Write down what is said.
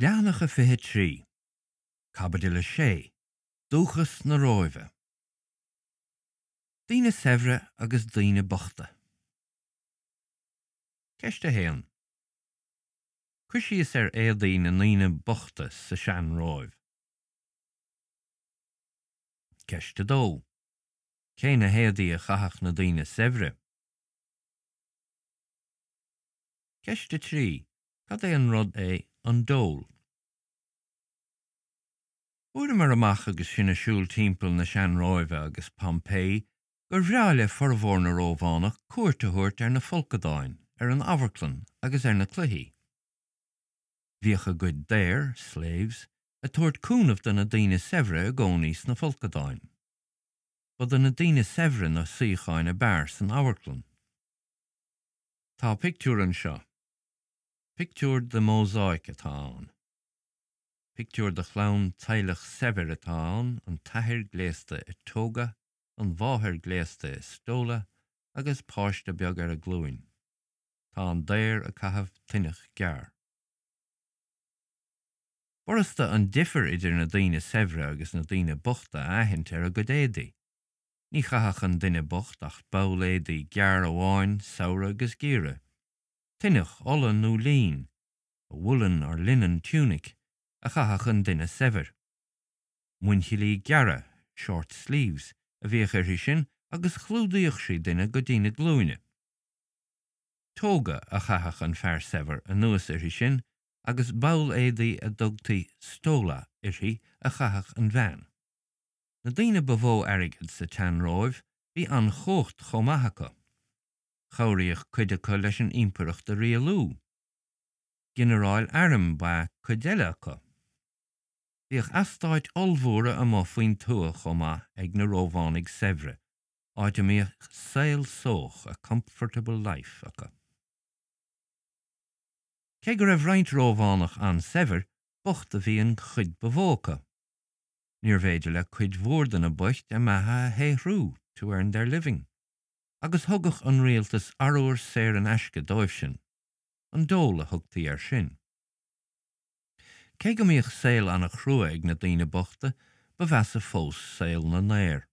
Leathanach a 23, Caibidil 6, Dúchas na Róimhe. Daoine saibhre agus daoine bochta. Ceist 1. Cuir síos ar éadaí na ndaoine bochta sa sean-Róimh. Ceist 2. Cé na héadaí a chaitheadh na daoine saibhre? Ceist 3. Cad é an rud é an dole? Fuaireamar amach agus sinn ag siúl timpeall na sean-Róimhe agus Pompeii gur bhreá le formhór na Rómhánach cuairt a thabhairt ar na folcadáin, ar an amharclann agus ar na cluichí. Bhíodh a gcuid daor, slaves, ag tabhairt cúnamh do na daoine saibhre i gcónaí sna folcadáin. Ba do na daoine saibhre na suíocháin ab fhearr san amharclann. Tá pictiúr anseo. Pictiúr de mhósáic atá ann. Pictiúr de chlann teaghlach saibhir atá ann, an t-athair gléasta i toga, an mháthair gléasta i stola agus páiste beag ar a glúin. Tá an daor ag caitheamh tuineach gearr. B'fhurasta an difear idir na daoine saibhre agus na daoine bochta a aithint ar a gcuid éadaí. Ní chaitheadh an duine bocht ach ball éadaí gearr amháin samhradh agus geimhreadh. Tuineach olla nó lín, a woolen or linen tunic, a chaitheadh an duine saibhir. Muinchillí gearra, short sleeves, a bhíodh uirthi sin agus chlúdaíodh sí duine go dtí na glúine. Toga a chaitheadh an fear saibhir anuas uirthi sin agus ball éadaí a dtugtaí stola uirthi a chaitheadh an bhean. Na daoine ba mhó airgead sa tsean-Róimh bhí an-chumhacht chomh maith acu. Chabhraíodh cuid acu leis an impireacht a rialú. Ginearáil airm ba ea cuid eile acu. Bhíodh eastáit ollmhóra amuigh faoin tuath chomh maith ag na Rómhánaigh saibhre, áit a mbíodh saol sóch, a comfortable life, acu. Cé go raibh roinnt Rómhánach an-saibhir, bocht a bhí an chuid ba mhó acu. Níorbh fhéidir le cuid mhór de na boicht a mbeatha a shaothrú, to earn their living. agus thugadh an rialtas arbhar saor in aisce dóibhsean. An dole a thugtaí air sin. Cé go mbíodh saol an-chrua ag na daoine bochta, ba mheasa fós saol na ndaor.